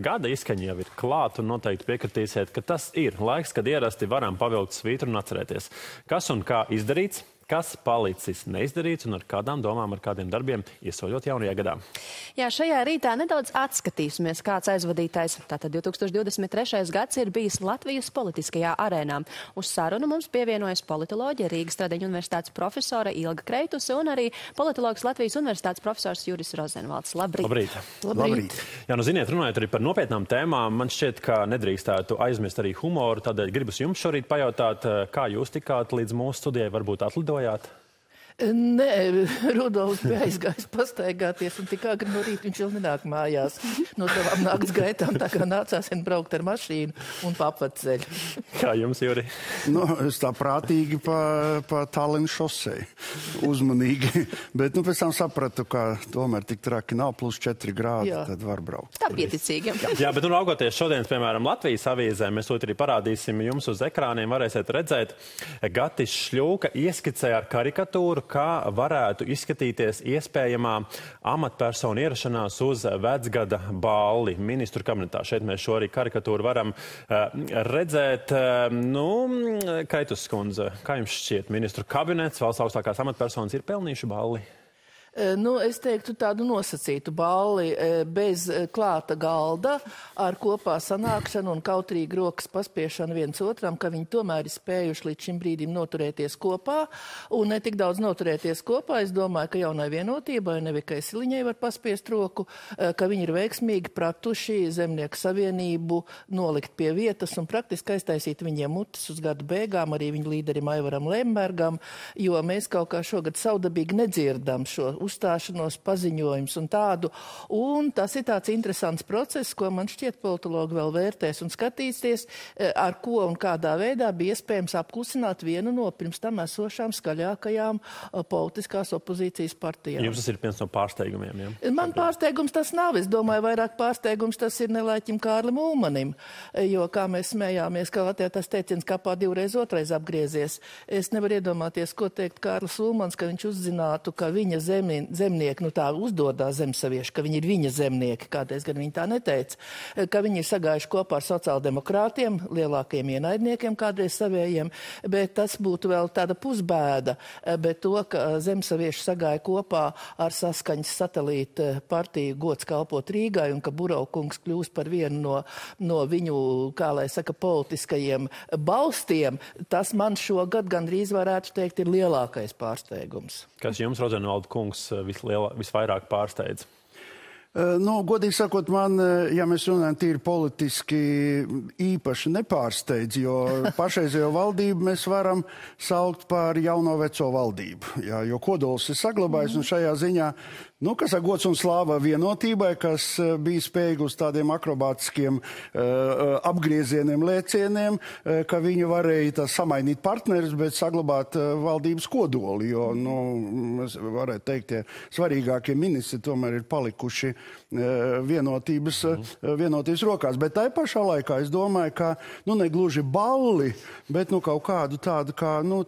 Gada izskaņa jau ir klāta un noteikti piekritīsiet, ka tas ir laiks, kad ierasti varam pavilkt svītru un atcerēties, kas un kā izdarīts, kas palicis neizdarīts un ar kādām domām, ar kādiem darbiem iesoļot jaunajā gadā. Jā, šajā rītā nedaudz atskatīsimies, kāds aizvadītais. Tātad 2023. gads ir bijis Latvijas politiskajā arēnā. Uz sarunu mums pievienojas politoloģija Rīgas Tradiņu universitātes profesora Ilga Kreituse un arī politologs Latvijas universitātes profesors Juris Rozenvalds. Labrīt! Labrīt! Labrīt! Jā, nu ziniet, runājot arī par nopietnām tēmām, man šķiet, ka nedrīkstētu aizmirst arī humoru, tādēļ gribas jums šorīt pajautāt, kā jūs tikāt līdz mūsu studijai, varbūt atlidojāt? Nē, Rudolfs bija aizgājis pastaigāties un tik agri no rīta viņš vēl nenāk mājās no savām nakts gaitām, tā kā nācās vien braukt ar mašīnu un pa apvedceļu. Kā jums, Juri? Nu, es tā prātīgi pa Tallinas šosei, uzmanīgi, bet pēc tam sapratu, ka tomēr tik traki nav, +4 grādi, tad var braukt. Tā pieticīgi. Jā, bet raugoties šodienas, piemēram, Latvijas avīzē, mēs to arī parādīsim jums uz ekrāniem, varēsiet redzēt, Gatis Šļūka ieskicē ar karikatūru, kā varētu izskatīties iespējamā amatpersonu ierašanās uz vecgada balli ministru kabinetā. Šeit mēs šo arī karikatūru varam redzēt. Kreitus skundze, kā jums šķiet, ministru kabinets, valsts augstākās amatpersonas ir pelnījuši balli? Es teiktu tādu nosacītu balli bez klāta galda, ar kopā sanākšanu un kautrīgi rokas paspiešanu viens otram, ka viņi tomēr ir spējuši līdz šim brīdim noturēties kopā, un ne tik daudz noturēties kopā. Es domāju, ka jaunai vienotībai, Nevikai Siliņai var paspiest roku, ka viņi ir veiksmīgi pratuši Zemnieku savienību nolikt pie vietas un praktiski aiztaisīt viņiem mutes uz gadu beigām, arī viņu līderim Aivaram Lembergam, jo mēs kaut kā šogad saudabīgi nedzirdam šo uzstāšanos, paziņojums un tādu. Un tas ir tāds interesants process, ko man šķiet politologi vēl vērtēs un skatīsies, ar ko un kādā veidā bija iespējams apklusināt vienu no pirms tam esošām skaļākajām politiskās opozīcijas partijām. Jums tas ir viens no pārsteigumiem, jā? Man pārsteigums tas nav. Es domāju, vairāk pārsteigums tas ir nelaiķim Kārlim Ulmanim, jo, kā mēs smējāmies, ka Latvijā tas teiciens kapā divreiz otrais apgriezies. Es nevaru iedomāties, ko teikt Kārlis Ulmans, ka viņš uzzinātu, ka viņa zemnieki, tā uzdodās zemsavieši, ka viņi ir viņa zemnieki, kādreiz gan viņi tā neteica, ka viņi ir sagājuši kopā ar sociāldemokrātiem, lielākiem ienaidniekiem, kādreiz savējiem, bet tas būtu vēl tāda pusbēda, bet to, ka zemsavieši sagāja kopā ar saskaņas satelīta partiju Gods kalpot Rīgai un ka Buraukungs kļūs par vienu no viņu, kā lai saka, politiskajiem balstiem, tas man šogad gandrīz varētu teikt ir lielākais pārsteigums. Kas jums, Rozenvalda kungs, visvairāk pārsteidz? Godīgi sakot, man, ja mēs runājam tīri politiski, īpaši nepārsteidz, jo pašreizējo valdību mēs varam saukt par jauno veco valdību, jo kodols ir saglabājis un šajā ziņā, kas ar gods un slāva vienotībai, kas bija spējīgi uz tādiem akrobātiskiem apgriezieniem, lēcieniem, ka viņi varēja samainīt partnerus, bet saglabāt valdības kodoli, jo, mēs varētu teikt, tie svarīgākie ministri tomēr ir palikuši vienotības rokās. Bet tai pašā laikā es domāju, ka, negluži balli, bet, kaut kādu tādu,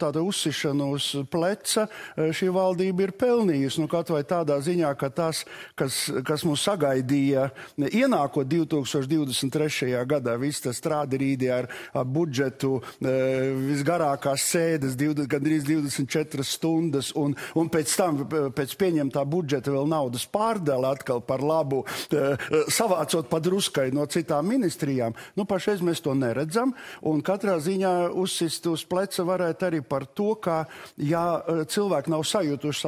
tāda uzsišanu uz pleca šī valdība ir pelnījusi, kaut vai tādā ziņā, ka tas, kas mūs sagaidīja ienākot 2023. gadā, viss tas strādirīdi ar budžetu, visgarākās sēdes, gandrīz 24 stundas, un pēc tam, pēc pieņemtā budžeta vēl naudas pārdala atkal par labu, savācot padruskai no citām ministrijām. Pašreiz mēs to neredzam, un katrā ziņā uzsist uz pleca varētu arī par to, ka, ja cilvēki nav sajutuši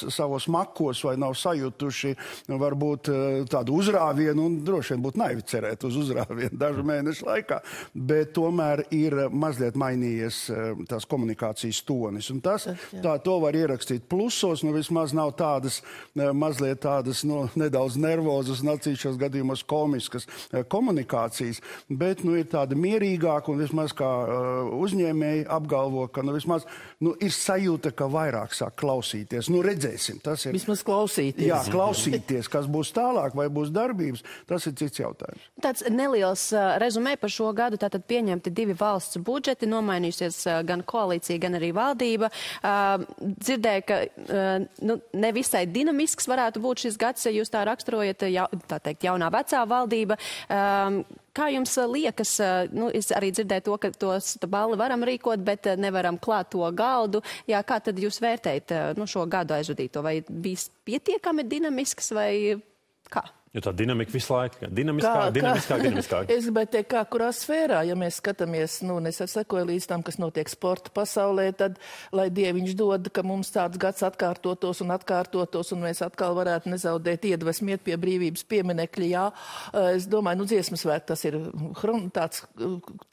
savos makos vai nav sajutuši varbūt tādu uzrāvienu, un droši vien būtu naivi cerēt uz uzrāvienu dažu mēnešu laikā, bet tomēr ir mazliet mainījies tās komunikācijas tonis. Un to var ierakstīt plusos, vismaz nav tādas, mazliet tādas, nedaudz nervozas un atsevišķos gadījumos komiskas komunikācijas, bet, ir tāda mierīgāka un vismaz kā uzņēmēji apgalvo, ka, vismaz, ir sajūta, ka vairāk sāk klausīties. Redzēsim, tas ir. Vismaz klausīties. Jā, klausīties, kas būs tālāk, vai būs darbības, tas ir cits jautājums. Tāds neliels rezumē par šo gadu, tātad pieņemti 2 valsts budžeti, nomainījusies gan koalīcija, gan arī valdība. Dzirdēju, ka nevisai dinamisks varētu būt šis gads, ja jūs tā raksturot. raksturojat, tā teikt, jaunā vecā valdība. Kā jums liekas, es arī dzirdēju to, ka tos balli varam rīkot, bet nevaram klāt to galdu. Jā, kā tad jūs vērtējat šo gadu aizvadīto? Vai bijis pietiekami dinamisks vai kā? Jo tā dinamika visu laiku, dinamiskāk. Es gribētu teikt, kā kurā sfērā, ja mēs skatāmies, es sekoju līdz tam, kas notiek sporta pasaulē, tad, lai Dieviņš dod, ka mums tāds gads atkārtotos, un mēs atkal varētu nezaudēt iedvesmu iet pie brīvības pieminekļa, jā. Es domāju, dziesmas svētki, tas ir tāds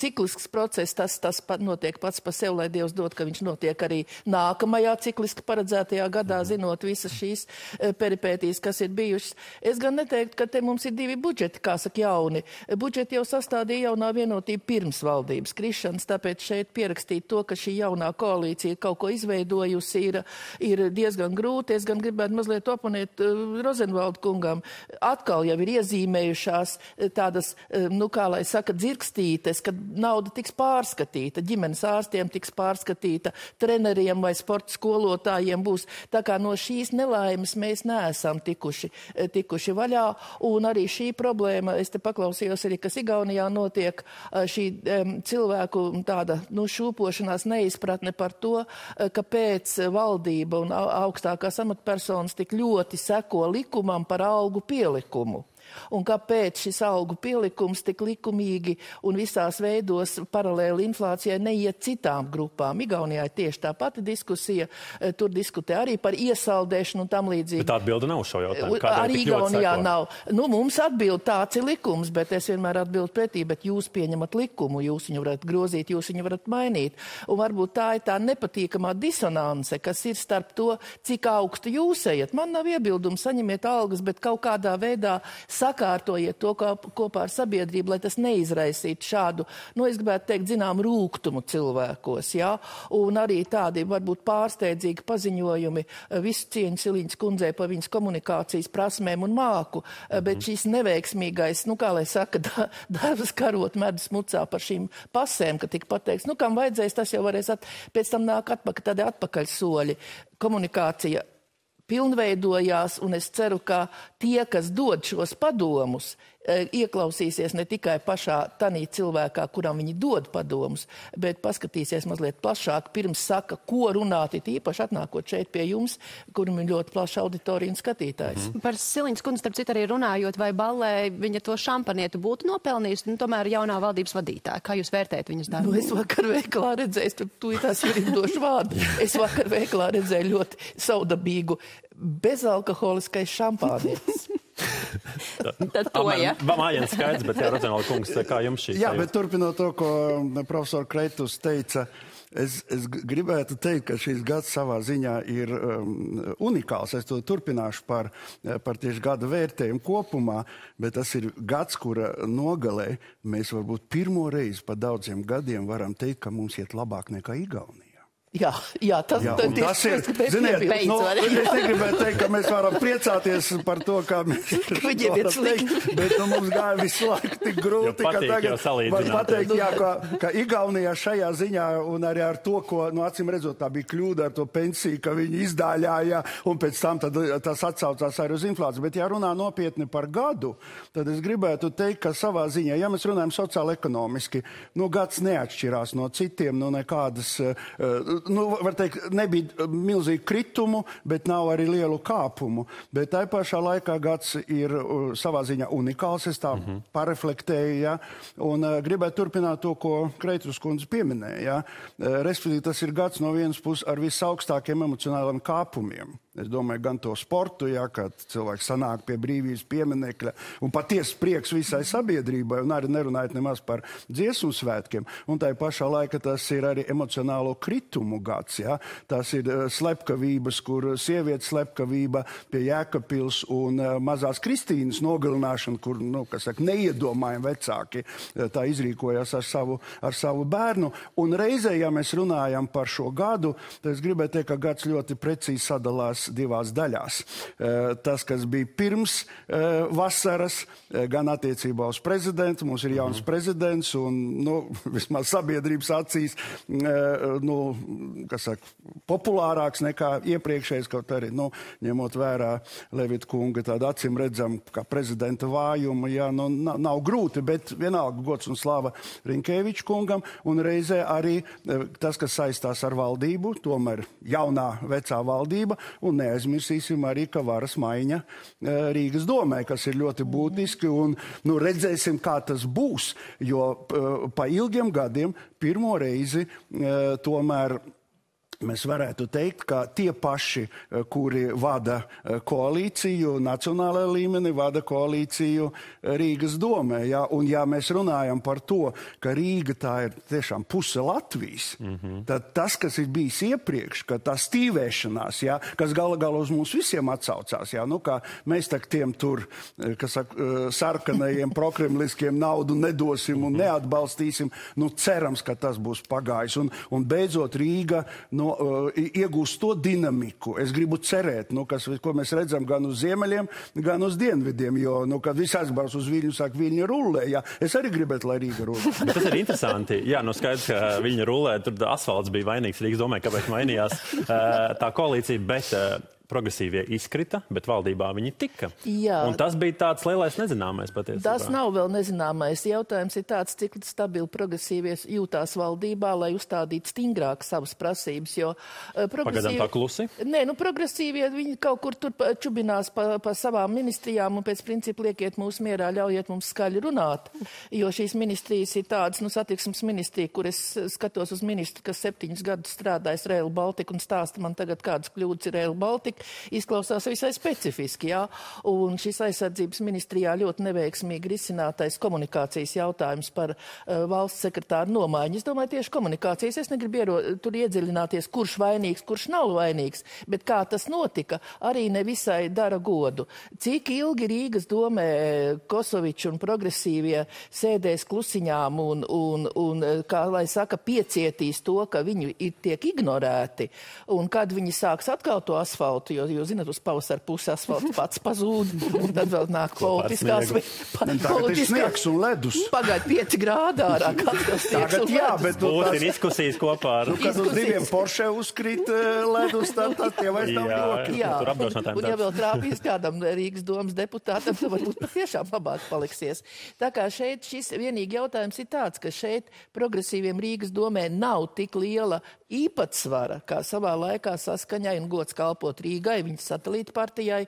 ciklisks process, tas notiek pats pa sev, lai Dievs dod, ka viņš notiek arī nākamajā cikliski paredzētajā gadā, zinot visas šīs peripētīs, kas ir bijušas. Es gan neteiktu, ka te mums ir divi budžeti, kā saka jauni. Budžeti jau sastādīja jaunā vienotība pirms valdības krišanas, tāpēc šeit pierakstīt to, ka šī jaunā koalīcija kaut ko izveidojusi, ir diezgan grūti. Es gan gribētu mazliet oponēt Rozenvalda kungam. Atkal jau ir iezīmējušās tādas, kā lai saka, dzirkstītes, kad nauda tiks pārskatīta, ģimenes ārstiem tiks pārskatīta, treneriem vai sporta skolotājiem būs. Tā kā no šīs nelaimes mēs neesam tikuši vaļā. Un arī šī problēma, es te paklausījos arī, kas Igaunijā notiek, šī cilvēku tāda šūpošanās neizpratne par to, kāpēc valdība un augstākās amatpersonas tik ļoti seko likumam par algu pielikumu. Un kāpēc šis algu pielikums tik likumīgi un visās veidos paralēli inflācijai neiet citām grupām. Igaunijā ir tieši tā pati diskusija, tur diskutē arī par iesaldēšanu un tam līdzīgi. Bet atbilde nav uz šo jautājumu. Arī Igaunijā nav. Mums atbild tāds ir likums, bet es vienmēr atbildu pretī, bet jūs pieņemat likumu, jūs viņu varat grozīt, jūs viņu varat mainīt. Un varbūt tā ir tā nepatīkamā disonance, kas ir starp to, cik augstu jūs ejat. Man nav iebildumu, saņemiet algas, bet kaut kādā veidā sakārtojiet to kopā ar sabiedrību, lai tas neizraisītu šādu, es gribētu teikt, zinām, rūgtumu cilvēkos, jā, un arī tādi varbūt pārsteidzīgi paziņojumi, visu cieņu Siliņas kundzei par viņas komunikācijas prasmēm un māku, bet šīs neveiksmīgais, kā lai saka, darbs karot medus mucā par šīm pasēm, ka tika pateikts, kam vajadzēs, tas jau varēs pēc tam nāk tādi atpakaļ soļi. Komunikācija pilnveidojās, un es ceru, ka tie, kas dod šos padomus, ieklausīsies ne tikai pašā tanī cilvēkā, kuram viņi dod padomus, bet paskatīsies mazliet plašāk, pirms saka, ko runāt, īpaši atnākot šeit pie jums, kuram ir ļoti plaša auditorija un skatītājs. Par Siliņas kundzi, starp citu, arī runājot, vai ballē viņa to šampanietu būtu nopelnījusi, tomēr jaunā valdības vadītāja. Kā jūs vērtējat viņas darbu? Es vakar veikalā redzēju, tās ir došu vārdu. Es vakar veikalā redzēju ļoti saudabīgu bezalkoholiskais šampānietis. Tad to, ja? Mājiens skaidrs, bet jā, Rozenvalda kungs, kā jums šī? Jā, bet turpinot to, ko profesor Kreitus teica, es gribētu teikt, ka šīs gads savā ziņā ir unikāls. Es to turpināšu par tieši gada vērtējumu kopumā, bet tas ir gads, kura nogalē mēs varbūt pirmo reizi pa daudziem gadiem varam teikt, ka mums iet labāk nekā Igaunija. Jā, tas ir, ziniet, es negribētu teikt, ka mēs varam priecāties par to, kā mēs varam teikt, bet mums gāja visu laiku tik grūti, ka tagad var pateikt, ka Igaunijā šajā ziņā un arī ar to, ko, acīm redzot, tā bija kļūda ar to pensiju, ka viņi izdāļāja un pēc tam tas atsaucās arī uz inflāciju. Bet ja runā nopietni par gadu, tad es gribētu teikt, ka savā ziņā, ja mēs runājam sociāli ekonomiski, gads neatšķirās no citiem, nekādas var teikt, nebija milzīgu kritumu, bet nav arī lielu kāpumu. Bet tā pašā laikā gads ir savā ziņā unikāls, es tā pareflektēju, ja? Un gribētu turpināt to, ko Kreitus kundze pieminēja. Ja? Respektīvi, tas ir gads no vienas puses ar visaugstākiem emocionāliem kāpumiem. Es domāju, gan to sportu, ja, kad cilvēks sanāk pie brīvības pieminekļa un patiesi prieks visai sabiedrībai, un arī nerunājot nemaz par dziesmu svētkiem. Un tā pašā laika tas ir arī emocionālo kritumu gads. Ja. Tas ir slepkavības, kur sievietes slepkavība pie Jēkabpils un mazās Kristīnas nogalināšana, kur, neiedomājami vecāki tā izrīkojās ar savu bērnu. Un reizē, ja mēs runājam par šo gadu, tad es gribētu teikt, ka gads ļoti precīzi sadalās divās daļās. Tas, kas bija pirms vasaras, gan attiecībā uz prezidentu, mums ir jauns prezidents un, vismaz sabiedrības acīs, populārāks nekā iepriekšējais, kaut arī, ņemot vērā Levita kunga tādu acīm redzam, kā prezidenta vājumu, nav grūti, bet vienalga gods un slava Rinkēviča kungam, un reizē arī tas, kas saistās ar valdību, tomēr jaunā vecā valdība, un neaizmirsīsim arī, ka varas maiņa Rīgas domē, kas ir ļoti būtiski, un redzēsim, kā tas būs, jo pa ilgiem gadiem pirmo reizi tomēr mēs varētu teikt, ka tie paši, kuri vada koalīciju, nacionālajā līmenī vada koalīciju Rīgas domē. Ja? Un ja mēs runājam par to, ka Rīga tā ir tiešām puse Latvijas, tad tas, kas ir bijis iepriekš, ka tā stīvēšanās, ja, kas gala uz mums visiem atsaucās, ja? Kā mēs tak tiem tur, sarkanajiem prokremliskiem naudu nedosim un neatbalstīsim, cerams, ka tas būs pagājis. Un beidzot Rīga, iegūst to dinamiku. Es gribu cerēt, ko mēs redzam gan uz ziemeļiem, gan uz dienvidiem, jo, kad viss aizbrauc uz Viļņu, saka, Viļņa rullē, jā. Es arī gribētu, lai Rīga rullē. Tas ir interesanti. Jā, skaidrs, ka Viļņa rullē, tur asfalts bija vainīgs Rīgas domē, kāpēc mainījās tā koalīcija, bet progresīvie izkrita, bet valdībā viņi tika. Jā. Un tas bija tāds lielais nezināmais patiesībā. Tas nav vēl nezināmais. Jautājums ir tāds, cik stabili progresīvies jūtās valdībā, lai uzstādītu stingrāk savas prasības, jo Pagaidām tā klusi? Nē, pragrasīvie, viņi kaut kur tur čubinās pa savām ministrijām un pēc principa liekiet mūs mierā, ļaujiet mums skaļi runāt, jo šīs ministrijas ir tādas, satiksmes ministrija, kur es skatos uz ministru, kas 7 gadus strādājis Rail Baltica un stāsta man tagad, kādas kļūdas ir Rail Baltica. Izklausās visai specifiski, jā. Un šis aizsardzības ministrijā ļoti neveiksmīgi risinātais komunikācijas jautājums par valsts sekretāru nomaiņu. Es domāju, tieši komunikācijas. Es negribu tur iedziļināties, kurš vainīgs, kurš nav vainīgs, bet kā tas notika, arī nevisai dara godu. Cik ilgi Rīgas domē Kosovičs un progresīvie sēdēs klusiņām un kā lai saka, piecietīs to, ka viņi tiek ignorēti, un kad viņi sāks atkal to asfaltu, jo zināt, uz pavasaru pusi asfalts pats pazūd, un tad vēl nāk politiskās... Tagad ir sniegs un ledus. Pagaid 5 grādi ārā, kāds sniegs un ledus. Bet būs diskusijas kopā ar... Kad uz 2 Porsche uzkrīt ledus, tad tie vairs nav joki. Jā, un ja vēl trāpīs kādam Rīgas domas deputātam, tad varbūt tiešām labāk paliksies. Tā kā šeit šis vienīgi jautājums ir tāds, ka šeit progresīviem Rīgas domē nav tik liela īpatsvara, kā savā laikā Saskaņai un gods kalpot Rīgai, viņas satelīta partijai,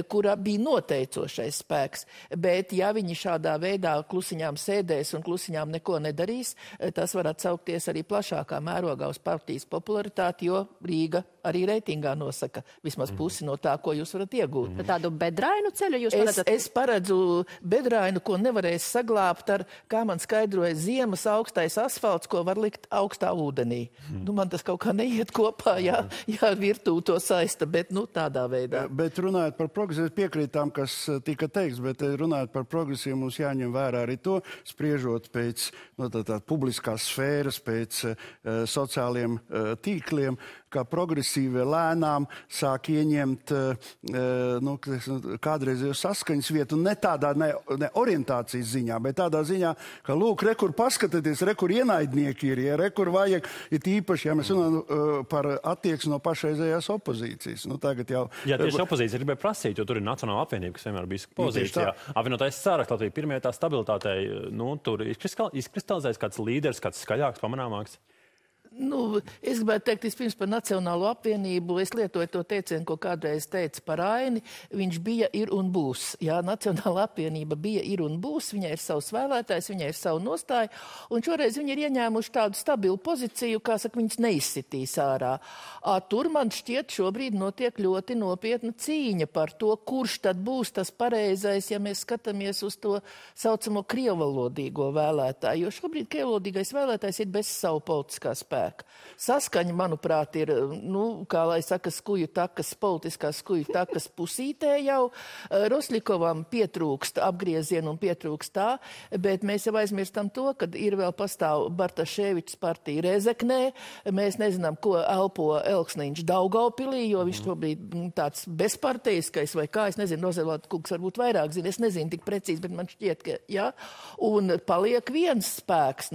kura bija noteicošais spēks. Bet ja viņi šādā veidā klusiņām sēdēs un klusiņām neko nedarīs, tas var atsaukties arī plašākā mērogā uz partijas popularitāti, jo Rīga arī reitingā nosaka vismaz pusi no tā, ko jūs varat iegūt. Tādu bedrainu ceļu jūs paredzat? Es paredzu bedrainu, ko nevarēs saglābt ar, kā man skaidroja, ziemas augstais asfalts, ko var likt augstā ūdenī. Man tas kaut kā neiet kopā, ja virtū to saista, bet tādā veidā. Bet runājot par progresīvu, piekrītām, kas tika teiks, bet runājot par progresīvu, mums jāņem vērā arī to, spriežot pēc publiskās sfēras, pēc sociāliem tīkliem, kā progresīvie lēnām sāk ieņemt kādreizējo saskaņas vietu, ne tādā ne orientācijas ziņā, bet tādā ziņā, ka lūk, rekur paskatieties, rekur ienaidnieki ir, rekur vajag, ir īpaši, ja mēs runājam par attieksmi no pašreizējās opozīcijas. Tagad jau... Jā, tieši opozīcija gribēja prasīt, jo tur ir Nacionāla apvienība, kas vienmēr bijis pozīcijā. Apvienotais Saraksts Latvija pirmajā tā stabilitātei, tur izkristalizēs kāds līderis, kāds skaļāks, pamanāmāks. Es gribētu teikt vispirms par Nacionālo apvienību. Es lietoju to teicienu, ko kādreiz teica par Aini. Viņš bija, ir un būs. Jā, Nacionāla apvienība bija, ir un būs. Viņai ir savs vēlētājs, viņai ir savu nostāju. Un šoreiz viņi ir ieņēmuši tādu stabilu pozīciju, kā saka, viņas neizsitīs ārā. Tur man šķiet šobrīd notiek ļoti nopietna cīņa par to, kurš tad būs tas pareizais, ja mēs skatāmies uz to saucamo krievalodīgo vēlētāju. Jo šobrīd krievalodīgais vēlētājs ir bez savu politiskā spēka. Saskaņa, manuprāt, ir, kā lai saka, skuju takas, politiskās skuju takas pusītē jau. Roslikovam pietrūkst apgriezienu un pietrūkst tā, bet mēs jau aizmirstam to, kad ir vēl pastāv Bartaševičs partija Rezeknē. Mēs nezinām, ko elpo Elksniņš Daugavpilī, jo viņš šobrīd tāds bezparteiskais vai kā, es nezinu, Rozelāta kungs varbūt vairāk zina, es nezinu tik precīzi, bet man šķiet, ka, jā. Un paliek viens spēks,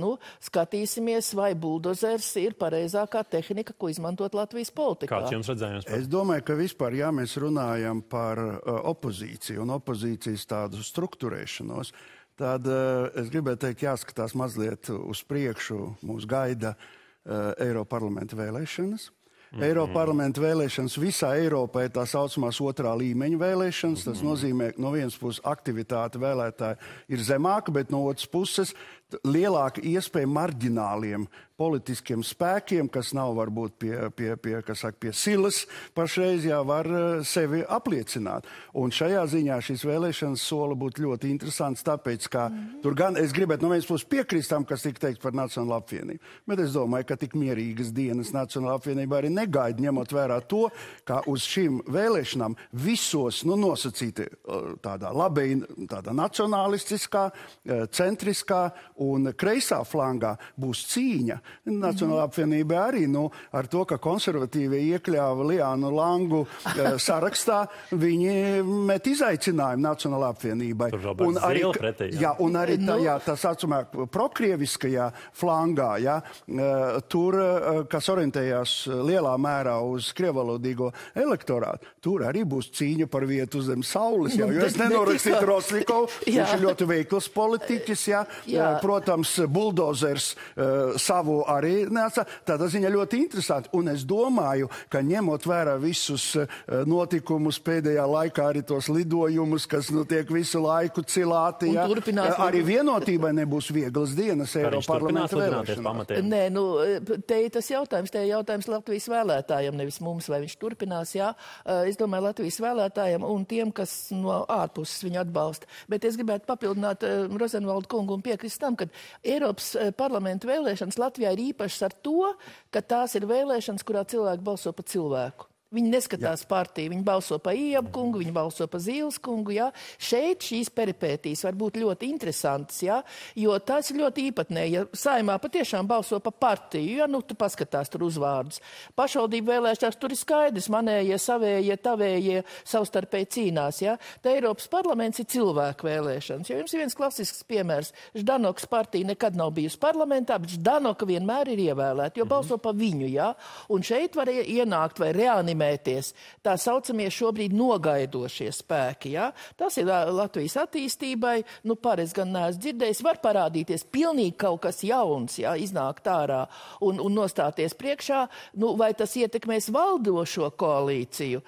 skatīsimies, vai buldozers ir pareizākā tehnika, ko izmantot Latvijas politikā. Kāds jums redzējums? Es domāju, ka vispār, ja mēs runājam par opozīciju un opozīcijas tādu strukturēšanos, tad es gribētu teikt, jāskatās mazliet uz priekšu, mūs gaida Eiroparlamenta vēlēšanas. Eiroparlamenta vēlēšanas visā Eiropā ir tā saucamās otrā līmeņa vēlēšanas. Tas nozīmē, ka no vienas puses aktivitāte vēlētāji ir zemāka, bet no otras puses lielāka iespēja marģināliem politiskiem spēkiem, kas nav varbūt pie silas pašreiz, var sevi apliecināt. Un šajā ziņā šīs vēlēšanas sola būtu ļoti interesants, tāpēc, ka tur gan es gribētu no vienas puses piekrist tam, kas tika teikt par Nacionālo apvienību, bet es domāju, ka tik mierīgas dienas Nacionālā apvienībā arī negaida, ņemot vērā to, ka uz šīm vēlēšanām visos, nosacīti tādā tādā nacionalistiskā, centriskā un kreisā flangā būs cīņa. Nacionālā apvienība arī, ar to, ka konservatīvie iekļāva Liānu Langu sarakstā, viņi met izaicinājumu Nacionālā apvienībai. Un arī, un arī tā saucamā prokrieviskajā flangā, tur, kas orientējās lielā mērā uz krievalodīgo elektorātu, tur arī būs cīņa par vietu zem saules. Jo es nenorakstītu Roslikovu, viņš ir ļoti veikls politiķis, protams, buldozers savu arī neatsā. Tādā ziņā ļoti interesanti. Un es domāju, ka ņemot vērā visus notikumus pēdējā laikā, arī tos lidojumus, kas tiek visu laiku cilāti, arī vienotībai nebūs vieglas dienas Eiroparlamenta vēlēšanās. Nē, te ir tas jautājums, jautājums Latvijas vēlētājiem, nevis mums, vai viņš turpinās, Es domāju, Latvijas vēlētājiem un tiem, kas no ārpuses viņu atbalsta. Bet es gribētu papildināt Rozenvaldu kungu un piekrist tam, ka Eiropas parlamenta vēlēšanas Latvijā ir īpašas ar to, ka tās ir vēlēšanas, kurā cilvēki balso pa cilvēku. Viņi neskatās partiju, viņi balso pa Iebu kungu, viņi balso pa Zīles kungu, Šeit šīs peripētīs var būt ļoti interesantas, jo tās ir ļoti īpatnēji. Ja Saeimā patiešām balso pa partiju, tu paskatās tur uzvārdus. Pašvaldību vēlēšanās tur ir skaidrs, manējie, savējie, tavējie savstarpēji cīnās, Tā Eiropas parlaments ir cilvēku vēlēšanas. Jo jums ir viens klasisks piemērs. Ždanokas partija nekad nav bijusi parlamentā, bet Ždanoka vienmēr ir ievēlēta, jo balso pa viņu, Un šeit var ienākt vai reanimēt tā saucamie šobrīd nogaidošie spēki. Tas ir Latvijas attīstībai, pareiz gan neesmu dzirdējis, var parādīties pilnīgi kaut kas jauns, iznākt ārā un nostāties priekšā, vai tas ietekmēs valdošo koalīciju.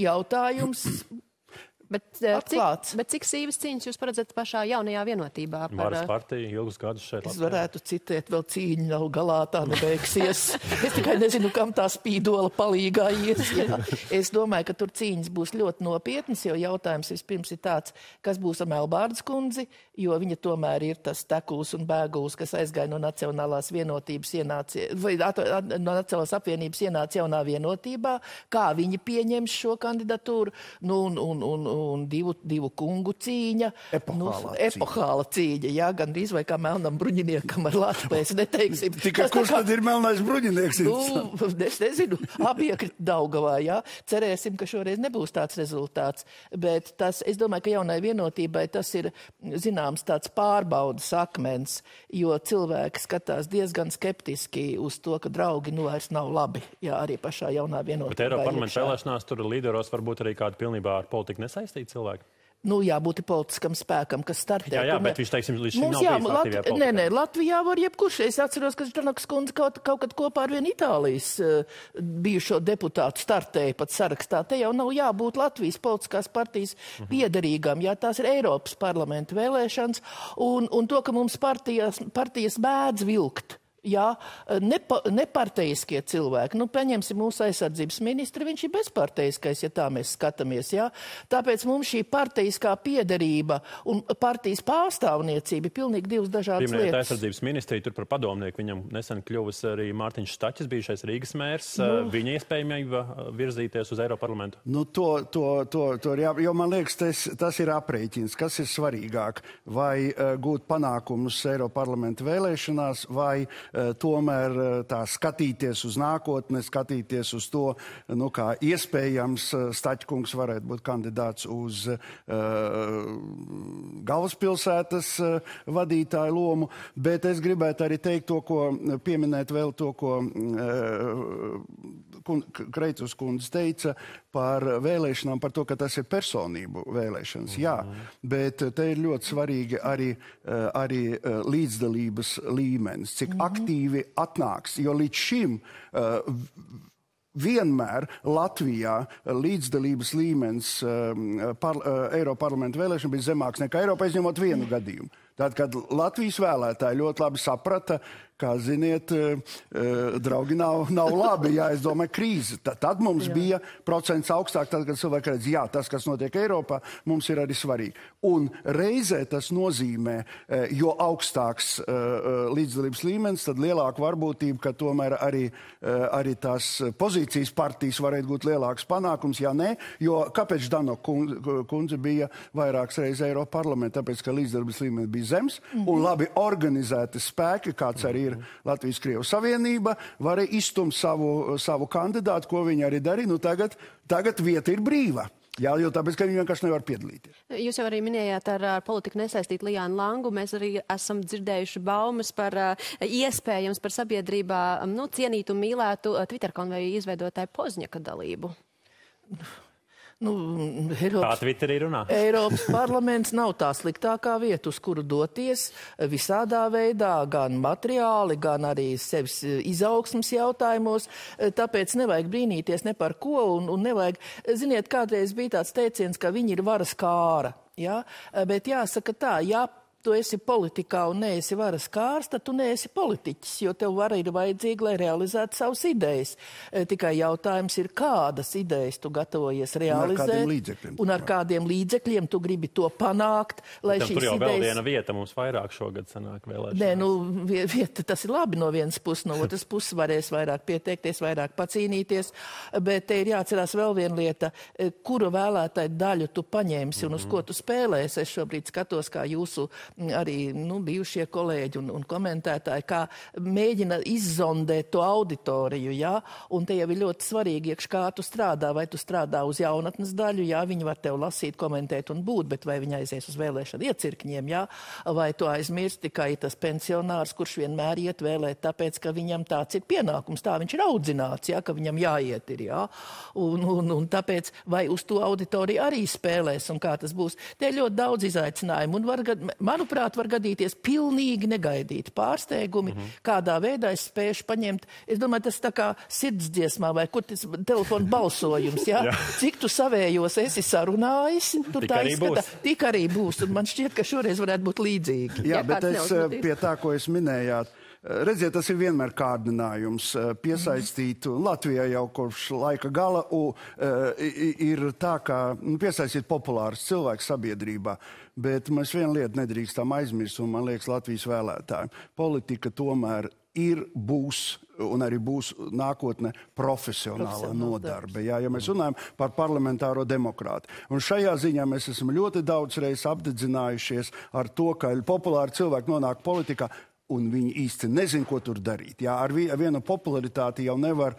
Jautājums... Bet cik sīvas cīņas jūs paredzat pašā jaunajā vienotībā? Varas partija ilgus gadus šeit Latvijā. Es varētu citēt, vēl cīņa nav galā, tā nebeigsies. Es tikai nezinu, kam tā spīdola palīgā ies. Es domāju, ka tur cīņas būs ļoti nopietnas, jo jautājums vispirms ir tāds, kas būs ar Melbārdas kundzi, jo viņa tomēr ir tas tekuls un bēguls, kas aizgāja no Nacionālās vienotības no Nacionālās apvienības ienāca jaunā vienotībā, kā viņi pieņems šo kandidatūru, un divu kungu cīņa. Epohāla cīņa, gandrīz vai kā melnam bruņiniekam ar Latvijas, neteiksim. Tikai kurš tad ir melnais bruņinieks? Es nezinu, apiekrit Daugavā, Cerēsim, ka šoreiz nebūs tāds rezultāts, bet es domāju, ka jaunai vienotībai tas ir, zināms, tāds pārbaudas akmens, jo cilvēki skatās diezgan skeptiski uz to, ka draugi vairs nav labi, arī pašā jaunā vienotībā. Bet Eiroparlamenta vēlēšanās tur līderos varbūt arī kādi pilnībā ar politiku nesaistīti cilvēki? Jābūt politiskam spēkam, kas startē. Jā, bet viņš, teiksim, līdz šim nav bijis aktīvajā politikā. Nē, Latvijā var jebkurš. Es atceros, ka Ždanokas kundze kaut kad kopā ar vienu Itālijas bijušo deputātu startēja pat sarakstā. Te jau nav jābūt Latvijas politiskās partijas piederīgam, tās ir Eiropas parlamenta vēlēšanas, un to, ka mums partijas bēdz vilkt. Neparteiskie cilvēki. Paņemsim mūsu aizsardzības ministri, viņš ir bezparteiskais, tā mēs skatāmies. Tāpēc mums šī parteiskā piederība un partijas pārstāvniecība ir pilnīgi divas dažādas lietas. Aizsardzības ministrija tur par padomnieku, viņam nesen kļuvis arī Mārtiņš Staķis, bijušais Rīgas mērs, viņa iespējamība virzīties uz Eiroparlamentu. Jo man liekas, tas ir aprēķins, kas ir svarīgāk, vai gūt panākumus Eiroparlamenta vēlēšanās, vai tomēr tā skatīties uz nākotni, skatīties uz to, nu, kā iespējams Staķkungs varētu būt kandidāts uz galvaspilsētas vadītāju lomu, bet es gribētu arī teikt to, ko pieminēt vēl to, ko Kreitus kundze teica par vēlēšanām, par to, ka tas ir personību vēlēšanas. Jā, bet te ir ļoti svarīgi arī līdzdalības līmenis, cik aktīvi atnāks, jo līdz šim vienmēr Latvijā līdzdalības līmenis Eiroparlamenta vēlēšana bija zemāks nekā Eiropā, izņemot vienu gadījumu. Tad, kad Latvijas vēlētāji ļoti labi saprata, kā ziniet, draugi nav labi, jā, es domāju, krīze. Tad mums bija procents augstāk, tad, kad cilvēki redz, jā, tas, kas notiek Eiropā, mums ir arī svarīgi. Un reizē tas nozīmē, jo augstāks līdzdalības līmenis, tad lielāka varbūtība, ka tomēr arī tās pozīcijas partijas varētu būt lielāks panākums, ja ne, jo kāpēc Dano kundze bija vairākas reizes Eiroparlamentā, tāpēc, ka līdzdalības līmenis bija zems, un labi organizēti spēki, kāds arī ir Latvijas-Krievu savienība, varēja izstumt savu kandidātu, ko viņi arī darīja. Nu, tagad vieta ir brīva. Jā, jo tāpēc, ka viņi vienkārši nevar piedalīties. Jūs jau arī minējāt ar politiku nesaistīt Lijānu Langu. Mēs arī esam dzirdējuši baumas par iespējams par sabiedrībā cienītu un mīlētu Twitter konveju izveidotāju Pozņaka dalību. Eiropas parlaments nav tā sliktākā vieta, uz kuru doties visādā veidā, gan materiāli, gan arī sevis izaugsmas jautājumos. Tāpēc nevajag brīnīties ne par ko un nevajag, ziniet, kādreiz bija tāds teiciens, ka viņi ir varas kāra. Ja? Bet jāsaka tā, tu esi politikā un neesi varas kārs, tad tu neesi politiķis, jo tev vara ir vajadzīga, lai realizētu savas idejas. Tikai jautājums ir, kādas idejas tu gatavojies realizēt un ar kādiem līdzekļiem tu gribi to panākt, lai šīs idejas... Tur jau vēl viena vieta mums vairāk šogad sanāk vēlēšanās. Nē, vieta, tas ir labi no vienas puses, no otras puses varēs vairāk pieteikties, vairāk pacīnīties, bet te ir jāatcerās vēl viena lieta, kuru vēlētāju daļu tu paņemsi un uz ko tu spēlēsi. Es šobrīd skatos, kā jūsu arī bijušie kolēģi un komentētāji, kā mēģina izzondēt to auditoriju, jā, un te jau ir ļoti svarīgi, kā tu strādā, vai tu strādā uz jaunatnes daļu, jā, viņi var tev lasīt, komentēt un būt, bet vai viņi aizies uz vēlēšanu iecirkņiem, jā, vai tu aizmirsti tikai tas pensionārs, kurš vienmēr iet vēlēt, tāpēc, ka viņam tāds ir pienākums, tā viņš ir audzināts, jā, ka viņam jāiet ir, jā, un tāpēc, vai uz to auditoriju arī spēlēs, un kā tas būs, te ir ļoti daudz izaicinājumu, un manuprāt, var gadīties pilnīgi negaidīti pārsteigumi, kādā veidā es spēšu paņemt. Es domāju, tas tā kā sirdsdziesmā vai kur tas telefona balsojums, jā? Cik tu savējos esi sarunājis, tur tā izskatā. Tik arī būs, un man šķiet, ka šoreiz varētu būt līdzīgi. Jā, bet es pie tā, ko es minējāt, redziet, tas ir vienmēr kārdinājums piesaistīt, un Latvijā jau kopš laika gala ir tā, ka piesaistīt populārus cilvēkus sabiedrībā, bet mēs vienu lietu nedrīkstam aizmirst, un man liekas Latvijas vēlētājiem. Politika tomēr būs un arī būs nākotne profesionāla nodarbe. Jā, ja mēs runājam par parlamentāro demokrātu. Un šajā ziņā mēs esam ļoti daudz reizes apdedzinājušies ar to, ka populāri cilvēki nonāk politikā, un viņi īsti nezin, ko tur darīt. Jā, ar vienu popularitāti jau nevar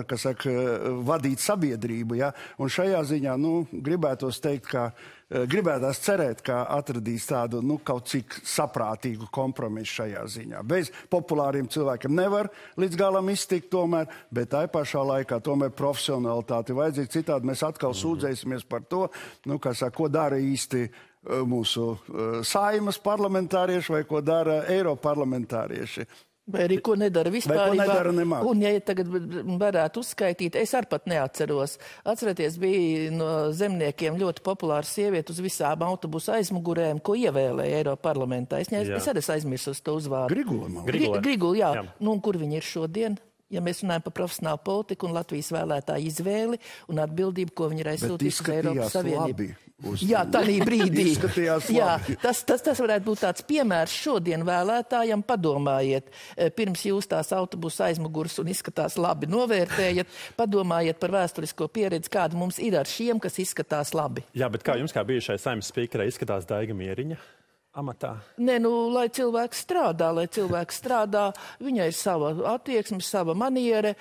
kas saka, vadīt sabiedrību. Jā? Un šajā ziņā, gribētos teikt, gribētās cerēt, ka atradīs tādu, kaut cik saprātīgu kompromisu šajā ziņā. Bez populāriem cilvēkiem nevar līdz galam iztikt tomēr, bet tai pašā laikā tomēr profesionalitāti vajadzīga. Citādi mēs atkal sūdzēsimies par to, ko dara īsti mūsu Saeimas parlamentārieši vai ko dara Eiroparlamentārieši. Vai arī ko nedara vispārībā. Nemāk. Un ja tagad varētu uzskaitīt, es arī pat neatceros. Atcerieties, bija no zemniekiem ļoti populāra sieviete uz visām autobusu aizmugurēm, ko ievēlēja Eiroparlamentā. Es arī aizmirsu uz to uzvārdu. Grigula, jā. Un kur viņi ir šodien? Ja mēs runājam par profesionālu politiku un Latvijas vēlētāju izvēli un atbildību, ko viņi ir aizsūtījuši Eiropas Savienību. Jā, tādā brīdī. Jā, tas varētu būt tāds piemērs šodien vēlētājam. Padomājiet, pirms jūs tās autobusu aizmugurs un izskatās labi novērtējat, padomājiet par vēsturisko pieredzi, kāda mums ir ar šiem, kas izskatās labi. Jā, bet kā jums, kā bijušai Saeimas spīkerei, izskatās Daiga Mieriņa? amatā? Nē, nu, lai cilvēks strādā, viņai ir sava attieksme, sava maniere,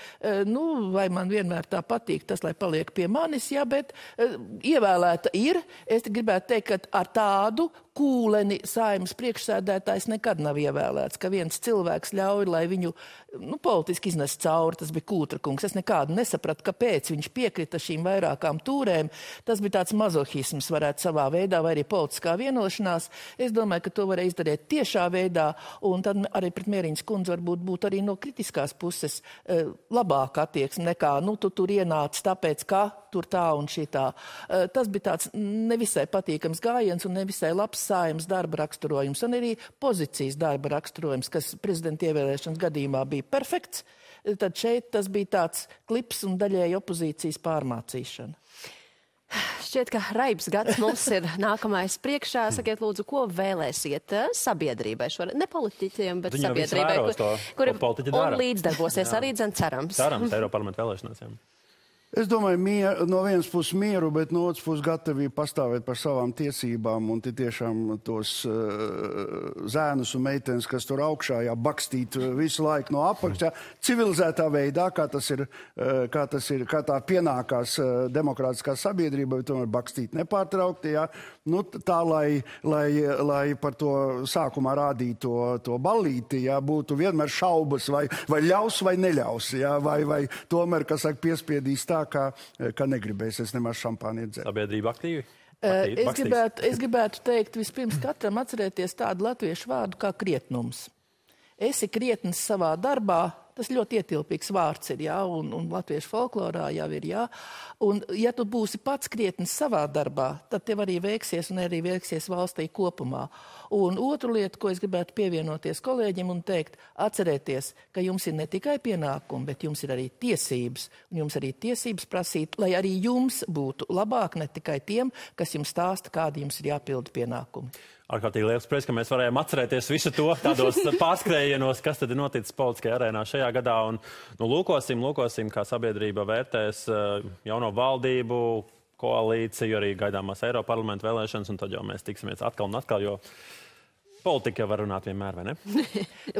nu, vai man vienmēr tā patīk tas, lai paliek pie manis, jā, bet ievēlēta ir. Es gribētu teikt, ka ar tādu kūleni Saeimas priekšsēdētājs nekad nav ievēlēts, ka viens cilvēks ļauj, lai viņu, nu, politiski iznes cauri, tas bija Kūtra kungs. Es nekādu nesapratu, kāpēc viņš piekrita šīm vairākām tūrēm. Tas bija tāds mazohisms, varētu savā veidā, vai arī politiskā vienošanās. Es domāju, ka to varēja izdarīt tiešā veidā, un tad arī pret Mieriņas kundzi varbūt būt arī no kritiskās puses labāka attieksme nekā, nu, tu tur ienāc tāpēc, ka tur tā un šitā. Tas bija tāds nevisai patīkams gājiens un nevisai labs Saeimas darba raksturojums un arī pozīcijas darba raksturojums, kas prezidenta ievēlēšanas gadījumā bija perfekts. Tad šeit tas bija tāds klips un daļēji opozīcijas pārmācīšana. Šķiet, ka raibs gads mums ir nākamais priekšā. Sakiet, lūdzu, ko vēlēsiet sabiedrībai? Ne politiķiem, bet sabiedrībai, kuri un līdzdarbosies arī, cerams. Cerams, Eiroparlamenta vēlēšanās, jā. Es domāju, no vienas puses mieru, bet no otras puses gatavību pastāvēt par savām tiesībām un tiešām tos zēnus un meitenes, kas tur augšā, bakstīt visu laiku no apakšā, civilizētā veidā, kā tā pienākās demokrātiskā sabiedrība, bet tomēr bakstīt nepārtraukti, jā. Nu, tā, lai par to sākumā rādītu to ballīti, jā, būtu vienmēr šaubas, vai ļaus vai neļaus, jā, vai tomēr, kas saka, piespiedīs tā, ka negribēs es nemaz šampāni iedzert. Sabiedrība aktīvi? Es gribētu teikt vispirms katram atcerēties tādu latviešu vārdu kā krietnums. Esi krietns savā darbā, tas ļoti ietilpīgs vārds ir, jā, un latviešu folklorā jau ir, jā. Un ja tu būsi pats krietns savā darbā, tad tev arī veiksies un arī veiksies valstī kopumā. Un otru lietu, ko es gribētu pievienoties kolēģim un teikt, atcerēties, ka jums ir ne tikai pienākumi, bet jums ir arī tiesības. Un jums arī tiesības prasīt, lai arī jums būtu labāk, ne tikai tiem, kas jums stāsta, kādi jums ir jāpilda pienākumi. Ārkārtīgi liels prieks, ka mēs varējām atcerēties visu to tādos pārskrējienos, kas tad ir noticis politiskajā arēnā šajā gadā. Un, nu, lūkosim, kā sabiedrība vērtēs jauno valdību, koalīciju, arī gaidāmās Eiroparlamenta vēlēšanas, un tad jau mēs tiksimies atkal un atkal, jo politika jau var runāt vienmēr, vai ne?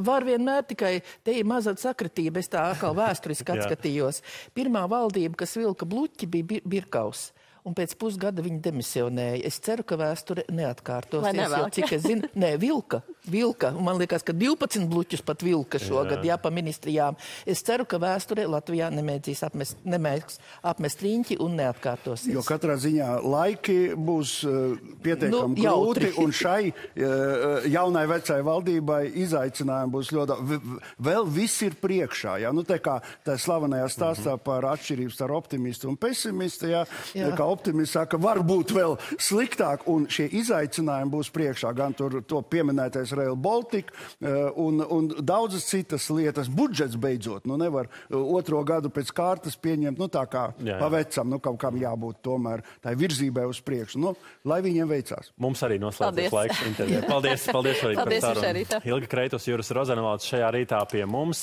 Var vienmēr, tikai te ir maza sakritība, es tā atkal vēsturiski atskatījos. Pirmā valdība, kas vilka bluķi, bija Birkaus. Un pēc pusgada viņi demisionēja. Es ceru, ka vēsture neatkārtosies. Jo, cik es zinu, vilka. Un man liekas, ka 12 bluķus pat vilka šogad, jā, pa ministrijām. Es ceru, ka vēsture Latvijā nemēģīs apmest riņķi un neatkārtosies. Jo katrā ziņā laiki būs pietiekami grūti, un šai jaunai vecai valdībai izaicinājumi būs ļoti. Vēl viss ir priekšā, jā. Nu, tā kā tā slavenajā stāstā par atšķirības ar optimistu un pesimistu, jā. Kā optimists saka, varbūt vēl sliktāk, un šie izaicinājumi būs priekšā, gan tur to pieminētais Rail Baltica un daudzas citas lietas. Budžets beidzot, nu nevar otro gadu pēc kārtas pieņemt, nu tā kā pavecam, nu kaut kam jābūt tomēr tā virzībai uz priekšu. Nu, lai viņiem veicās. Mums arī noslēdzies laiks intervijai. Paldies arī par sarunu. Ilga Kreitus, Juris Rozenvalds šajā rītā pie mums.